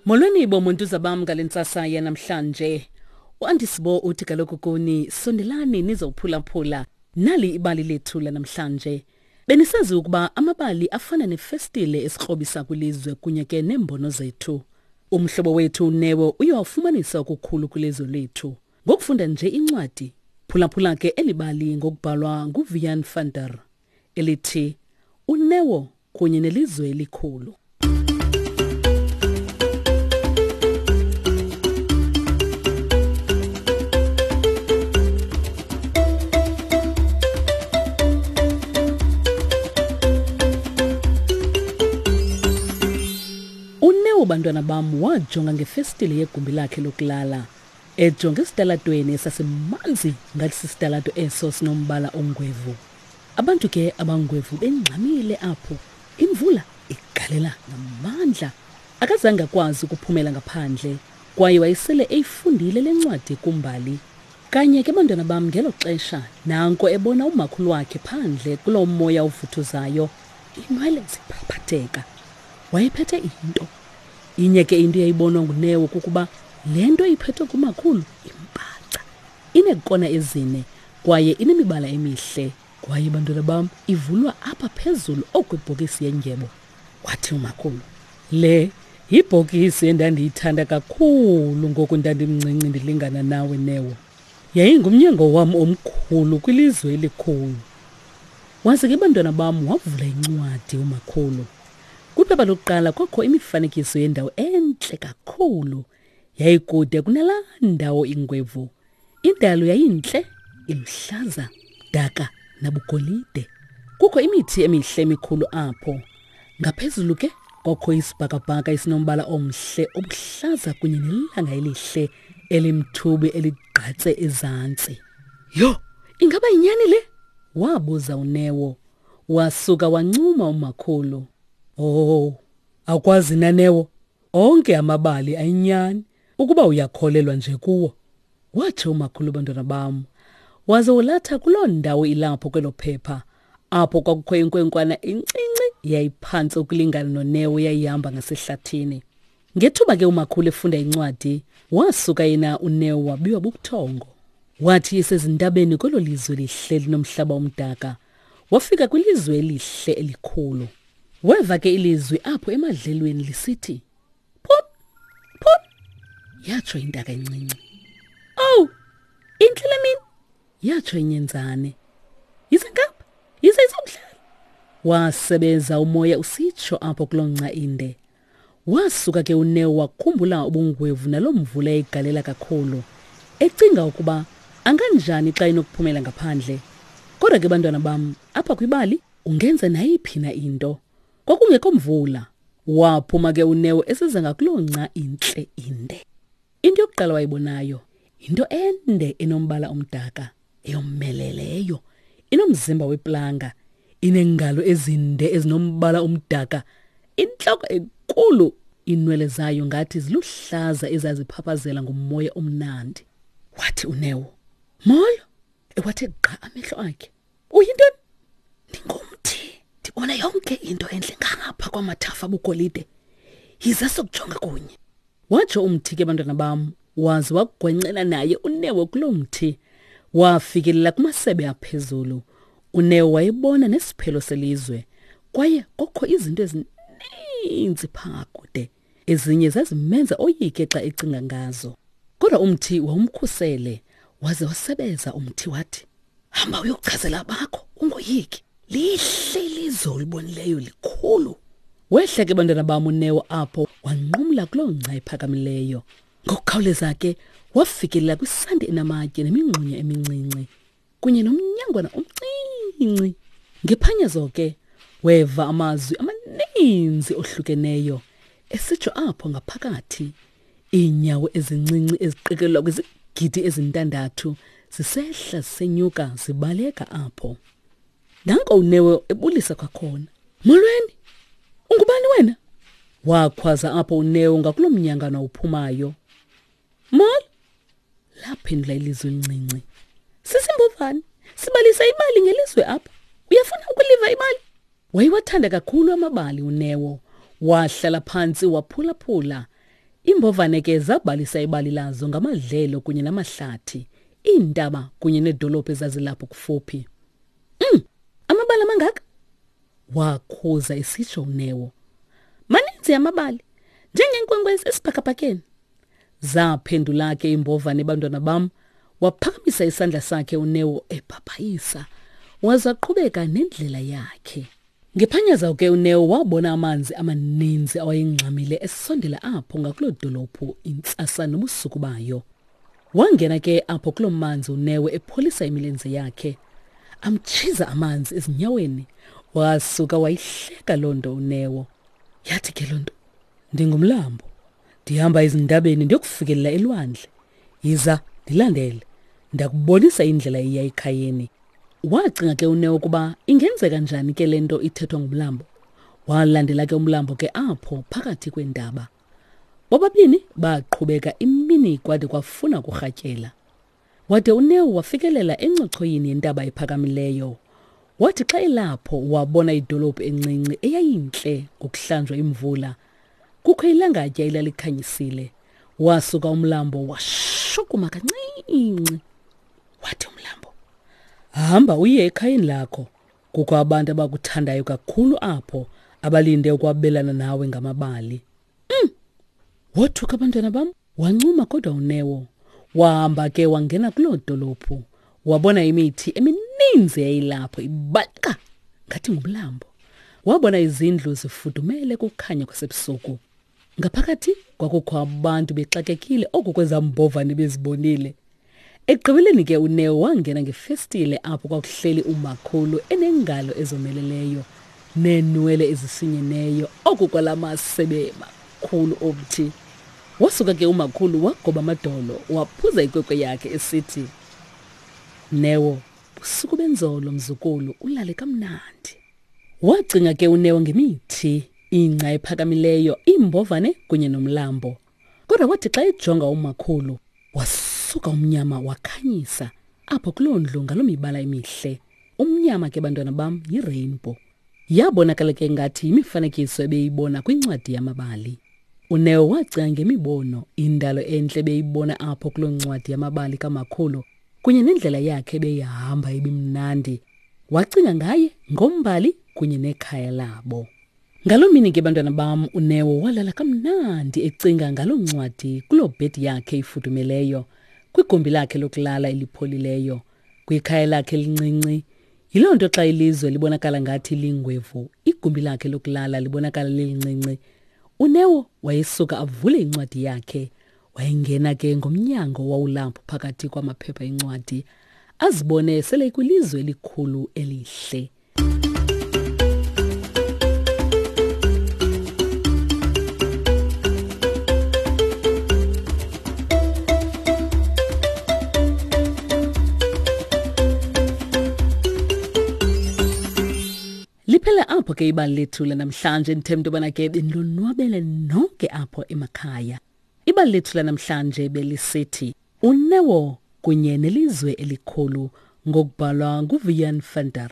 Molweni bomuntu bam ngale ntsasa yanamhlanje. UAndisibo uthi kaloku kuni sondelani nizophulaphula nali ibali lethu lanamhlanje. Benisazi ukuba amabali afana nefestile esikrobisa kwilizwe kunye ke neembono zethu. Umhlobo wethu uNeo uye wafumanisa okukhulu kwilizwe lethu. Ngokufunda nje incwadi, phulaphula ke eli bali ngokubhalwa nguVian van der elithi uNeo kunye nelizwe elikhulu. UNeo bantwana bam wajonga ngefestile yegumbi lakhe lokulala ejonge esitalatweni esasimanzi ngathi sisitalato eso sinombala ongwevu. Abantu ke abangwevu bengxamile apho, imvula igalela ngamandla. Akazange akwazi ukuphumela ngaphandle kwaye wayesele eyifundile le ncwadi kumbali. Kanye ke bantwana bam ngelo xesha nanko ebona umakhulu wakhe phandle kuloo moya uvuthuzayo, inwele ziphaphatheka. Wayephethe into. Inye ke into eyayibonwa nguNeo kukuba le nto iphethwe ngumakhulu imbaca. Ineekona ezine kwaye inemibala emihle. Kwaye bantwana bam ivulwa apha phezulu okwibhokisi yendyebo. Wathi umakhulu, le yibhokisi endandiyithanda kakhulu ngoku ndandimncinci ndilingana nawe Neo. Yayingumnyango wam omkhulu kwilizwe elikhulu. Waze ke bantwana bam wavula incwadi umakhulu. Kwiphepha lokuqala kwakho imifanekiso yendawo entle kakhulu. Yayikude kunalaa ndawo ingwevu. Indalo yayintle, iluhlaza, daka nabugolide. Kukho imithi emihle emikhulu apho. Ngaphezulu ke kwakho isibhakabhaka esinombala omhle obuhlaza kunye nelanga elihle elimthubi eligqatse ezantsi. Yho, ingaba yinyani le? wabuza uNeo. Wasuka wancuma umakhulu. Oh, akwazi na Neo? Onke amabali ayinyani ukuba uyakholelwa nje kuwo. Watsho umakhulu bantwana bam. Waze wolatha kuloo ndawo ilapho kwelo phepha apho kwakukho inkwenkwana encinci yayiphantsi ukulingana noNeo yayihamba ngasehlathini. Ngethuba ke umakhulu efunda incwadi, wasuka yena uNeo wabiwa bubuthongo. Wathi esezintabeni kwelo lizwe lihle linomhlaba omdaka, wafika kwilizwe elihle elikhulu. Weva ke ilizwi apho emadlelweni lisithi, Phum, phum, yatsho intaka encinci. Owu, intle le mini, yatsho inyenzane. Yize ngapha, yize izokudlala. Wasebeza umoya usitsho apho kuloo nca inde. Wasuka ke uNeo wakhumbula ubungwevu naloo mvula eyigalela kakhulu, ecinga ukuba anganjani xa enokuphumela ngaphandle. Kodwa ke bantwana bam, apha kwibali ungenza nayiphi na into. Kwakungekho mvula. Waphuma ke uNeo esiza ngakuloo nca intle inde. Into yokuqala wayibonayo yinto ende enombala omdaka eyomeleleyo, inomzimba weplanga, ineengalo ezinde ezinombala omdaka, intloko enkulu, iinwele zayo ngathi ziluhlaza ezaziphaphazela ngumoya omnandi. Wathi uNeo, "Molo." Ewathe gqa amehlo akhe. Uyintoni? Ndingumthi. Ndibona yonke into entle ngapha kwamathafa abugolide. Yiza sokujonga kunye. Watsho umthi ke bantwana bam, waze wagwencela naye uNeo kuloo mthi. Wafikelela kumasebe aphezulu. UNeo wayebona nesiphelo selizwe kwaye kokho izinto ezininzi phaa kude. Ezinye zazimenza oyike xa ecinga ngazo. Kodwa umthi wawumkhusele waze wasebeza umthi wathi, Hamba uyokuchazela abakho, ungoyiki. Lihle ilizwe olibonileyo likhulu. Wehla ke bantwana bam uNeo apho wanqumla kuloo ngca iphakamileyo. Ngokukhawuleza ke wafikelela kwisanti enamatye nemingxunya emincinci kunye nomnyangwana omncinci. Ngephanyazo ke weva amazwi amaninzi ohlukeneyo esitsho apho ngaphakathi. Iinyawo ezincinci eziqikelelwa kwizigidi ezintandathu zisehla zisenyuka zibaleka apho. Nanko uNeo ebulisa kwakhona. Molweni! Ungubani wena? Wakhwaza apho uNeo ngakuloo mnyangana uphumayo. Molo! Laphendula ilizwi elincinci. Sisimbovane, sibalisa ibali ngelizwe apha. Uyafuna ukuliva ibali? Wayewathanda kakhulu amabali uNeo. Wahlala phantsi waphulaphula. Iimbovane ke zabalisa ibali lazo ngamadlelo kunye namahlathi, iintaba kunye needolophu ezazilapho kufuphi. Amabali amangaka? Wakhuza esitsho uNeo. Maninzi amabali, njengeenkwenkwezi esibhakabhakeni. Zaphendula ke iimbovane bantwana bam, waphakamisa isandla sakhe uNeo ebhabhayisa, waza qhubeka nendlela yakhe. Ngephanyaza ke uNeo wabona amanzi amaninzi awayengxamile esondela apho ngakuloo dolophu intsasa nobusuku bayo. Wangena ke apho kuloo manzi uNeo epholisa imilenze yakhe. Amtshiza amanzi ezinyaweni. Wasuka wayihleka loo nto uNeo. Yathi ke loo nto, ndingumlambo. Ndihamba ezintabeni ndiyokufikelela elwandle. Yiza, ndilandele. Ndakubonisa indlela eya ekhayeni. Wacinga ke uNeo ukuba ingenzeka njani ke le nto ithethwa ngumlambo. Walandela ke umlambo ke apho phakathi kweentaba. Bobabini baqhubeka imini kwade kwafuna kurhatyela. Wade uNeo wafikelela encochoyini yentaba ephakamileyo. Wathi xa elapho wabona idolophu encinci eyayintle ngokuhlanjwa imvula. Kukho ilangatya elalikhanyisile. Wasuka umlambo washukuma kancinci. Wathi umlambo, hamba uye ekhayeni lakho. Kukho abantu abakuthandayo kakhulu apho abalinde ukwabelana nawe ngamabali. Wothuka abantwana bam, wancuma kodwa uNeo. Wahamba ke wangena kuloo dolophu. Wabona imithi emininzi eyayilapho ibaleka ngathi ngumlambo. Wabona izindlu zifudumele kukhanya kwasebusuku. Ngaphakathi kwakukho abantu bexakekile oku kwezambovane bezibonile. Ekugqibeleni ke uNeo wangena ngefestile apho kwakuhleli umakhulu enengalo ezomeleleyo neenwele ezisinyeneyo oku kwala masebe makhulu omthi. Wasuka ke umakhulu wagoba amadolo waphuza ikwekwe yakhe esithi, Neo, busuku benzolo mzukulu ulale kamnandi. Wacinga ke uNeo ngemithi, ingca ephakamileyo, iimbovane kunye nomlambo. Kodwa wathi xa ejonga umakhulu, wasuka umnyama wakhanyisa apho kuloo ndlu ngaloo mibala emihle. Umnyama ke bantwana bam yirainbow. Yabonakala ke ngathi yimifanekiso ebeyibona kwincwadi yamabali. UNeo wacinga ngemibono, indalo entle ebeyibona apho kuloo ncwadi yamabali kamakhulu kunye nendlela yakhe ebeyihamba ibimnandi. Wacinga ngaye, ngombali kunye nekhaya labo. Ngaloo mini ke bantwana bam uNeo walala kamnandi ecinga ngaloo ncwadi kuloo bhedi yakhe ifudumeleyo, kwigumbi lakhe lokulala elipholileyo, kwikhaya lakhe elincinci. Yiloo nto xa ilizwe libonakala ngathi lingwevu, igumbi lakhe lokulala libonakala lilincinci. UNeo wayesuka avule incwadi yakhe. Wayengena ke ngomnyango owawulapho phakathi kwamaphepha encwadi, azibone sele ekwilizwe elikhulu elihle. Liphela apho ke ibali lethu lanamhlanje ndithemba into yobana ke benilonwabele nonke apho emakhaya. Ibali lethu lanamhlanje belisithi uNeo kunye nelizwe elikhulu ngokubhalwa nguVian van der.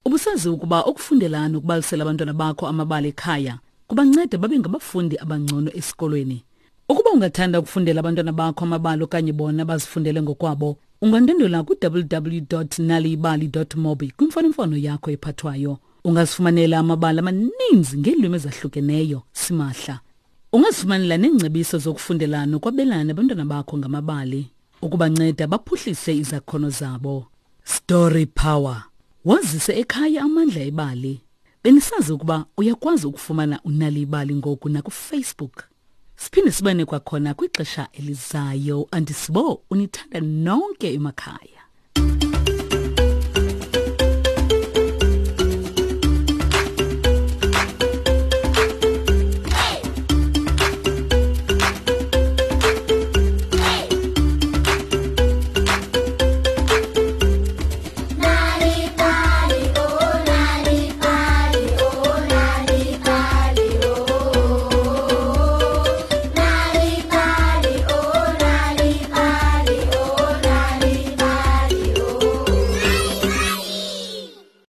Ubusazi ukuba ukufundela nokubalisela abantwana bakho amabali ekhaya kubanceda babe ngabafundi abangcono esikolweni. Ukuba ungathanda ukufundela abantwana bakho amabali okanye bona bazifundele ngokwabo, ungandwendwela ku-www.naliyibali.mobi kwimfonomfono yakho ephathwayo. Ungazifumanela amabali amaninzi ngeelwimi ezahlukeneyo simahla. Ungazifumanela neengcebiso zokufundela nokwabelana nabantwana bakho ngamabali ukubanceda baphuhlise izakhono zabo. Story Power. Wazise ekhaya amandla ebali. Benisazi ukuba uyakwazi ukufumana uNal'ibali ngoku nakuFacebook. Siphinde sibane kwakhona kwixesha elizayo. Andisibo unithanda nonke emakhaya.